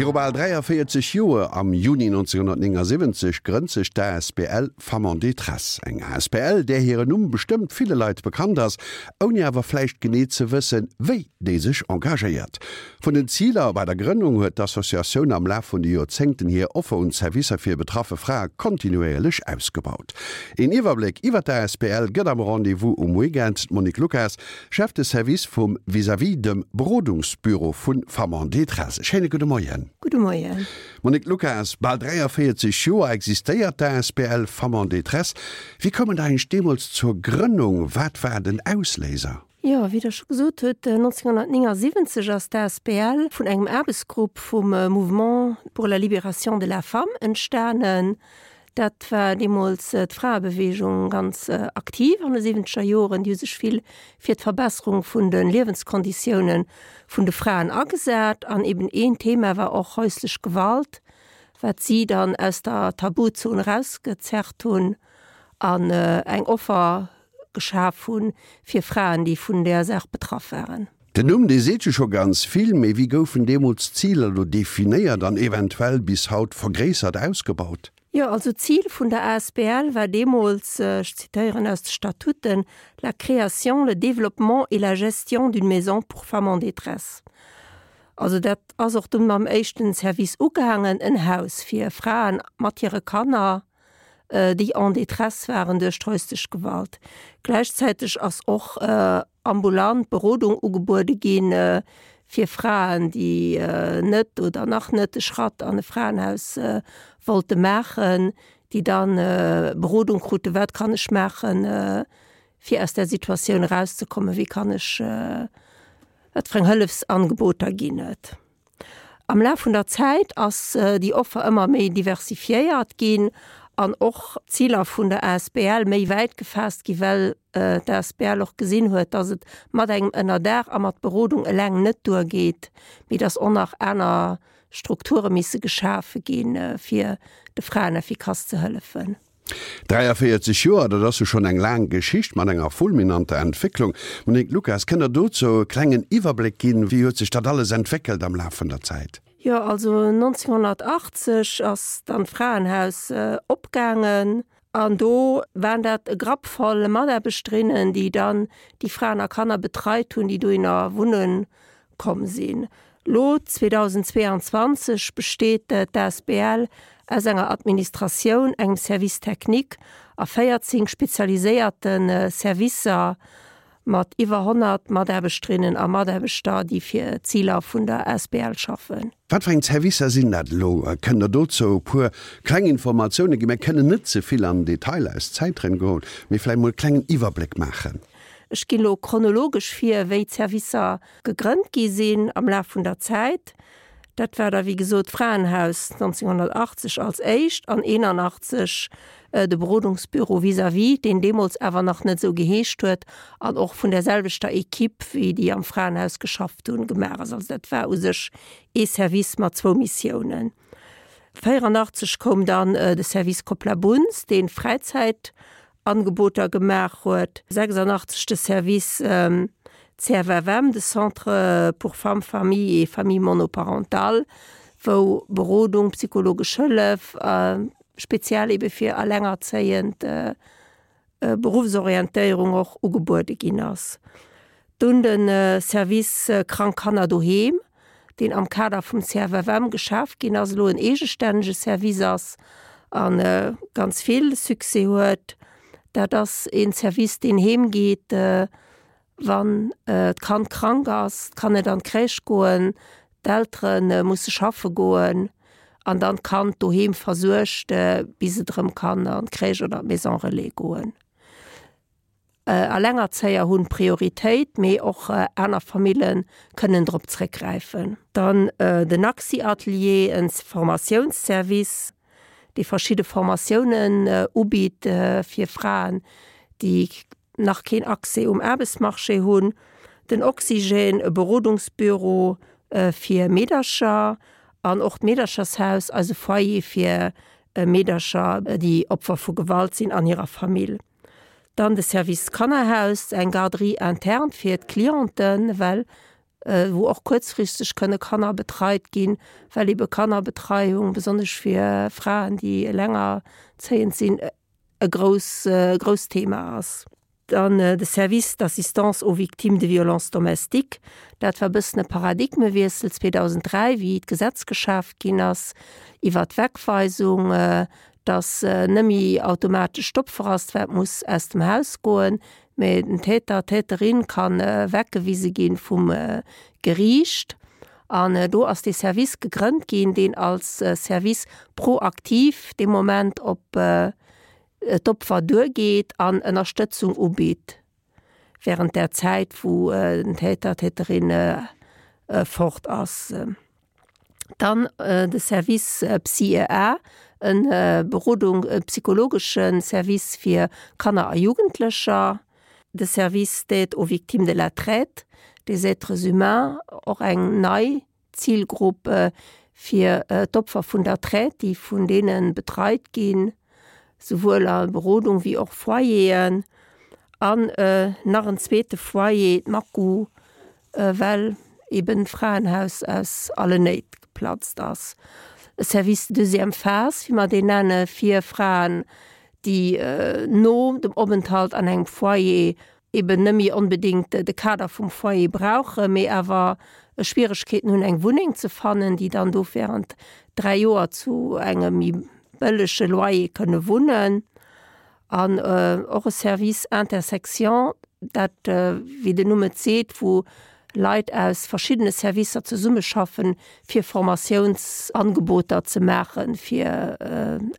Viru bal 43 Joer, am Juni 1979, grënnt sech d'ASBL Femmes en détresse. Eng asbl, där hiren Numm bestëmmt ville Leit bekannt ass, ouni awer vläicht genee ze wëssen, wéi déi sech engagéiert. Vun den Ziler bei der Grënnung huet d'Associatioun am Laf vun de Joerzéngten hir Offer un Servicer fir betraffe Frae kontinuéierlech ausgebaut. Een Iwwerbléck iwwer d'ASBL gëtt am Rendez-vous um Weekend d'Monique Lucas, Chef de Service vum Vis-à-vis, dem Berodungsbüro vu Femmes en détresse. E schéine gudde Moien. Gudde Moien. Monique Lucas, bal 43 Joer existéiert d'ASBL Femmes en détresse. Wéi koum et eigentlech deemools zur Grënnung? Wat war den Ausléiser? Jo, wéi Der scho gesot hutt, 1979 ass d'ASBL vun engem Aarbechtsgrupp vum Mouvement pour la libération de la femme entstanen. Dat war deemools d'Fraebeweegung ganz aktiv an de siwwenzeger Joren. Déi hu sech vill fir d'Verbesserung vun de Liewenskonditioune vun de Fraen agesat. An eben een Thema war och häuslech Gewalt, wat si dann aus der Tabuzon erausgezerrt hunn an eng Offer geschaf hunn fir Fraen, déi vun där Saach betraff waren. Den Numm, dee seet jo scho ganz vill, mee wéi goufen deemools d'Ziler elo definéiert an eventuell bis haut vergréissert ausgebaut? Jo, also d'Zil vun der asbl war deemools, ech zitéieren aus de Statuten, la création, le développement et la gestion d'une maison pour femmes en détresse. Also dat ass och dunn mam éischten Service ugaangen, en Haus fir Fraen mat hire Kanner, déi en détresse waren duerch d'häuslech Gewalt. Gläichzäiteg ass och ambulant Berodung ugebuede gi fir Fraen, déi net oder nach net de Schratt an e Fraenhaus wollte maachen, déi dann Berodung kruten, wat kann ech maachen, fir aus där Situatioun erauszekommen, wéi kann ech, wat fir eng Hëllefsangeboter ginn et. Am Laf vun der Zäit ass déi Offer ëmmer méi diversifiéiert ginn an och d'Ziler vun der asbl méi wäit gefaasst ginn, well d'asbl och gesinn huet, dass et mat engem Ënnerdaach a mat Berodung eleng net duergeet, mee dass och nach aner Strukture misse geschafe ginn, fir de Fraen effikass ze hëllefen. 43 Joer, dat ass jo schonn eng laang Geschicht mat enger fulminanter Entwécklung. Monique Lucas, kënnt Der dozou e klengen Iwwerbléck ginn? Wéi huet sech dat alles entwéckelt am Laf vun der Zäit? Jo, also 1980 ass dann d'Fraenhaus opgaangen an do waren dat e Grapp voll Mataarbechterinnen, déi dann déi Fraen a Kanner betreit hunn, déi dohinner wunne komm sinn. Lo, 2022, besteet d'ASBL aus enger Administratioun, engem Service technique a 14 spezialiséierte Servicer mat iwwer 100 Mataarbechterinnen a Mataarbechter, déi fir d'Ziler vun der asbl schaffen. Wat fir eng Servicer sinn dat elo? Kënnt Der dozou e puer kleng Informatioune ginn? Mir kënnen net ze vill an den Detail aus Zäitgrënn goen, mee vläicht mol e klengen Iwwerbléck maachen. Ech ginn elo chronologesch vir, wéi d'Servicer gegrënnt gi sinn am Laf vun der Zäit. Dat war da wéi gesot d'Fraenhaus 1980 als éischt an 81 de Berodungsbüro vis-à-vis, deen deemools awer nach net esou geheescht huet an och vun där selwechter Equipe wéi déi am Fraenhaus geschafft hunn, gemaach ass. Also dat war u sech ee Service mat zwou Missiounen. 84 koum dann de Service Koplabunz, dee Fräizäit Angeboter gemaach huet. 86 de Service CFFM, de Centre pour femmes, familles et familles monoparentales, wou Berodung, psychologesch Hëllef, speziell ebe fir Allengerzéiend, Beruffsorientéierung och ugebuede ginn ass. Dunn de Service Krank Kanner doheem, deen am Kader vum CFFM geschaf ginn ass, elo en eegestännege Service ass a ganz vill Succès huet. Dat ass een Service, deen heem geet, wann d'Kand krank ass, et kann net an d'Crèche goen, d'Eltere musse schaffe goen an dann d'Kand doheem versuergt, bis et erëm kann an d'Crèche oder d'Maison relais goen. Allengerzéier hunn Prioritéit, mee och aner Famille kënnen drop zréckgräifen. Dann den Axi-Atelier, en Formatiounsservice, dee verschidde Formatiounen ubitt fir Fraen, déi nach keen Accès um Aarbechtsmarché hunn. Den Oxygène, e Berodungsbüro fir Meedercher an och d'Meederchershaus, eise Foyer fir Meedercher, déi Opfer vu Gewalt sinn an hirer Famill. Dann de Service Kannerhaus, eng Garderie interne fir d'Clienten, well. wou och kuerzfristeg kënne Kanner betreit ginn, well ebe Kannerbetreiung, besonnesch fir Fraen, déi elengerzéiend sinn, e grouss, grousst Thema ass. Dann de Service d'assistance aux victimes de violences domestiques, dat war e bëssen e Paradigmewiessel 2003, wéi d'Gesetz geschaaft ginn ass iwwert d'Wegweisung, dass net méi automatesch d'Opfer ass, wat muss aus dem Haus goen, mä den Täter, d'Täterin ka weggewise gi vum Geriicht. An do ass dee Service gegrënnt ginn, deen als Service proaktiv dee Moment op d'Opfer duergeet an Ënnerstëtzung ubitt während där Zäit, wou den Täter, d'Täterin fort ass. Dann de Service Psy-EA, e Berodung, e psychologesche Service fir Kanner a Jugendlecher. De Service d'aide aux victimes de la traite des êtres humains, och eng nei Zilgrupp fir d'Opfer vun der Traite, déi vun deene betreit ginn, souwuel a Berodung wéi och Foyeren. An nach en zweete Foyer, d'Maku, well eben d'Fraenhaus aus allen Néit geplatzt ass. E Service de deuxième phase, wéi mer deen nenne fir Fraen, déi no dem Openthalt an engem Foyer eben net méi onbedéngt de Kader vum Foyer brauchen, mee awer Schwieregkeeten hunn, eng Wunneng ze fannen, déi dann do während 3 Joer zu engem méi bëllege Loyer kënne wunnen. An och e Service Intersection, dat, wéi den Numm et seet, wou Leit aus verschiddene Servicer zesummeschaffen, fir Formatiounsangeboter ze maache fir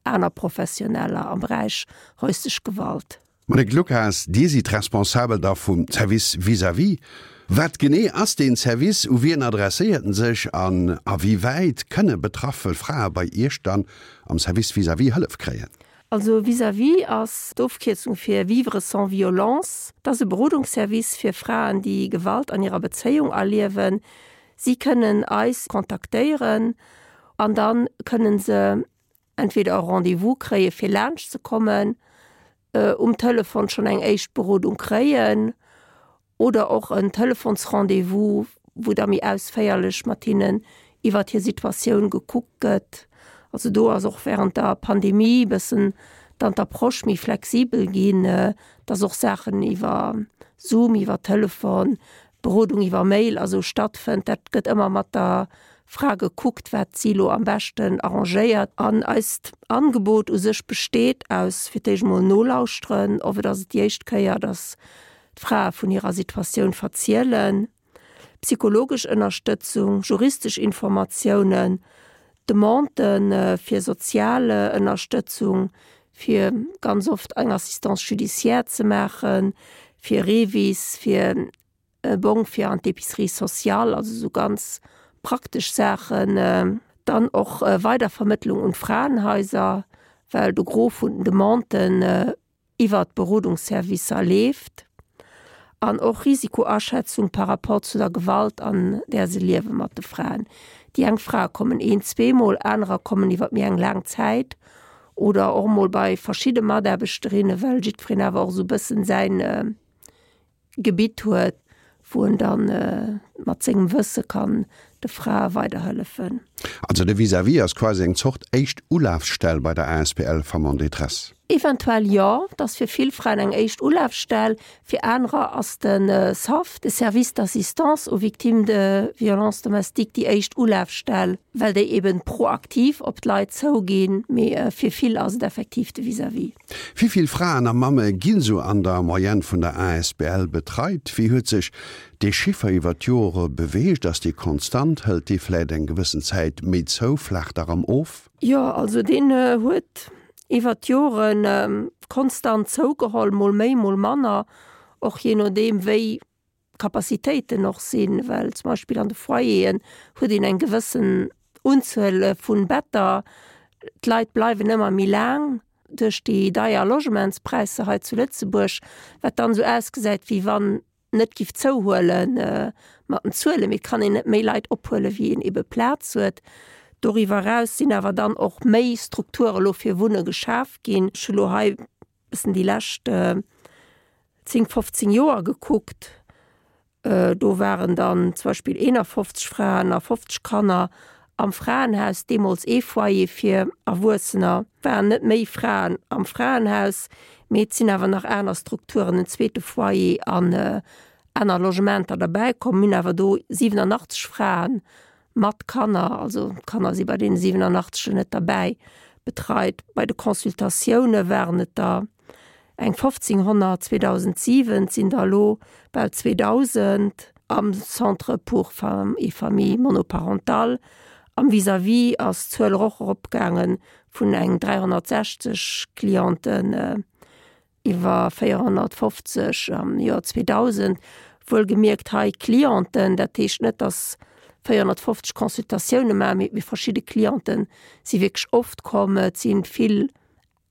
aner Professioneller am Beräich häuslech Gewalt. Monique Lucas, Dir sidd Responsabel da vum Service vis-à-vis. Wat genee ass deen Service, u wien adresséiert en sech an a wéi wäit kënne betraffe Frae bei Iech dann am Service vis-à-vis Hëllef kréien? Also Vis-à-vis ass d'Ofkierzung fir Vivre sans violence. Et ass e Berodungsservice fir Fraen, déi Gewalt an hirer Bezéiung erliewen. Si kënnen eis kontaktéieren an da kënne se entweder e Rendez-vous kréie fir laanscht ze kommen, um Telefon schonn eng éischt Berodung kréien oder och en Telefonsrendez-vous, wou da méi ausféierlech mat hinnen iwwert hir Situatioun gekuckt gëtt. Also do ass och während der Pandemie e bëssen dann d'Approche méi flexibel ginn, dass och Saachen iwwer Zoom, iwwer Telefon, Berodung iwwer Mail a sou stattfënnt. Dat gëtt ëmmer mat der Fra gekuckt, wat si lo am beschten arrangéiert. An eist Angebot u sech besteet aus fir d'éischt emol nolauschteren, oft ass et déi éischt Kéier, dass d'Frae vun hirer Situatioun verzielen, psychologesch Ënnerstëtzung, juristesch Informatiounen, Demandë fir sozial Ënnerstëtzung, fir ganz oft eng Assistance judiciaire ze maachen, fir REVIS, fir e Bong fir an d'Épicerie sociale, also esou ganz praktesch Saachen. Dann och Weidervermëttlung un d'Fraenhaiser, well de Gros vun den Demanden iwwert d'Berodungsservicer leeft. An och Risikoaschätzung par rapport zu der Gewalt, an där se liewe mat de Fraen. Déi eng Frae kommen een, zweemol, anerer kommen iwwer méi eng laang Zäit oder och mol bei verschidde Mataarbechterinnen, well jiddwereen awer och esou e bëssen säin Gebitt huet, wou en dann mat sengem Wësse kann de Frae weiderhëllefen. Also de Vis-à-vis ass quasi eng Zort éischt Ulafstell bei der asbl Femmes en détresse? Eventuell jo, et ass fir vill Fraen eng éischt Ulafstell. Fir anerer ass de SAV, de Service d'assistance aux victimes de violences domestiques, déi éischt Ulafstell, well déi eben proaktiv op d'Leit zouginn. Mee fir vill ass et effektiv de Vis-à-vis. Wéi vill Fraen a Mamme ginn sou an der Moyenne vun der asbl betreit? Wéi huet sech dee Chiffer iwwer d'Jore beweegt? Ass dee konstant? Hëlt dee vläit eng gewëssen Zäit méi zou, flaacht erëm of? Jo, also deen huet iwwer d'Jore konstant zougeholl, mol méi, mol manner, och jee nodeem wéi d'Capacitéiten och sinn, well zum Beispill an de Foyeren huet een eng gewëssen Unzuel vun Better. D'Leit bleiwen ëmmer méi laang duerch déi deier Logementspräisser hei zu Lëtzebuerg, wat dann esou ausgesäit, wéi wann net giff zouhuele mat den Zuelen, mee et kann een net méi Leit ophuelen, wéi een ebe Plaz huet. Doriwwer eraus sinn awer dann och méi Strukture lo fir Wunne geschaf ginn. Ech hu lo hei bëssen déi lescht 10, 15 Joer gekuckt. Do waren dann zum Beispill 51 Fraen a 50 Kanner am Fraenhaus, deemools ee Foyer fir Erwuessener. Et waren net méi Fraen am Fraenhaus, mee et sinn awer nach aner Strukturen, en zweete Foyer an aner Logementer derbäi komm. Mir hunn awer do 87 Fraen mat Kanner, also d'Kanner si bei deene 87 net derbäi, betreit. Bei de Consultatioune waren et der eng 1.500 2007, et sinn der elo bal 2.000 am Centre pour femmes et familles monoparentales. Am Vis-à-vis ass d'Zuel och eropgaange vun eng 360 Clienten Iwwer 450 am Joer 2000, wuelgemierkt hei Clienten, dat heescht net, datt 450 Consultatioune maachen, mee verschidde Cliente si wierklech oft komm. Et si vill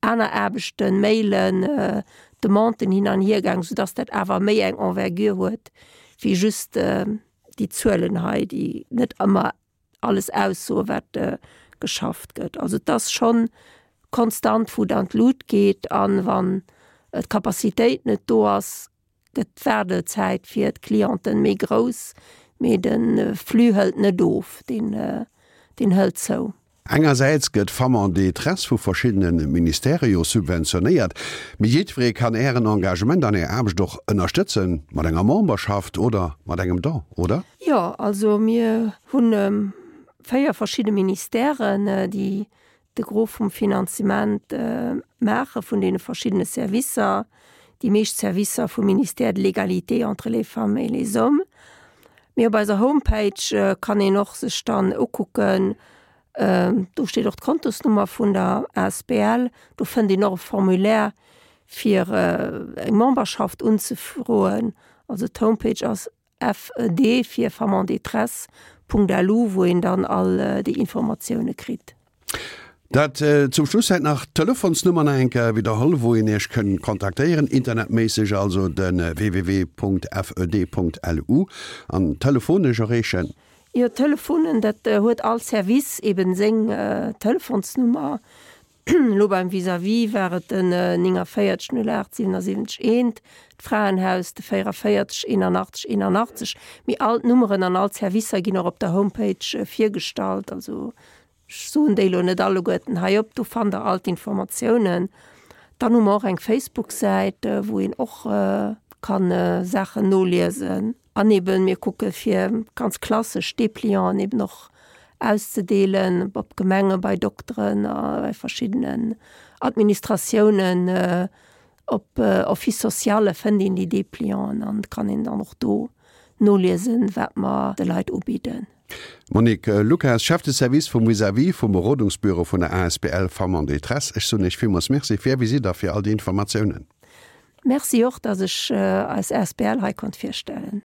aner Aarbechten, Mailen, Demanden hin an hier gaang, soudatt dat awer méi eng Envergure huet wéi just déi Zuelen hei, déi net ëmmer alles aussoen, wat geschafft gëtt. Also et ass schonn konstant, wou et an d'Lut geet. An wann d'Capacitéit net do ass, gëtt d'Waardezäit fir d'Clienten méi grouss, mee de Flux hëlt net of, deen deen hëlt zou. Engersäits gëtt Femmes en détresse vu verschiddene Ministèrë jo subventionéiert, mee jiddweree kann Ären Engagement an Är Aarbecht och ënnerstëtzen, mat enger Memberschaft oder mat engem Don, oder? Jo, also mir hu 4 verschidde Ministèren, déi de Gros vum Finanzement maache vun deene verschiddene Servicer. Déi meescht Servicer vum Ministère de l'Égalité entre les femmes et les hommes. Mee op eiser Homepage kann een och sech dann ukucken, do steet och d'Kontosnummer vun der asbl, do fënnt een och e Formulaire fir eng Memberschaft unzefroen. Also d'Homepage ass FED fir Femmes en détresse Punkt lu, wou een dann all déi Informatioune kritt. Dat zum Schluss hätt nach d'Telefonsnummer nach eng Kéier widderholl, wou een Iech kënn kontaktéieren, internetméisseg, also de www.fed.lu an telefonesch erreechen. Jo, Telefonen, dat huet all Service eben seng Telefonsnummer. Elo beim Vis-à-vis war et den 49 08 77 1, d'Fraenhaus de 44 81 81. Mee all d'Nummeren an all d'Servicer ginn och op der Homepage virgestallt. Also ech soen déi elo net alleguerten hei op, do fannt der all d'Informatiounen. Dann hu mer och eng Facebook-Säit, wou een och kann Saachen noliesen. An eben, mir kucke fir ganz klassesch Deplianten eben och auszedeelen op Gemenge, bei Dokteren a bei verschiddenen Administratiounen. Op Office sociale fënnt een déi Deplianten an kann een dann och do noliesen, wat mer de Leit ubidden. Monique Lucas, Chef de Service vum Vis-à-vis vum Berodungsbüro vun der asbl Femmes en détresse, ech soen Iech villmools Merci fir Är Visitt a fir all déi Informatiounen. Merci och, dass ech eis asbl hei konnt virstellen.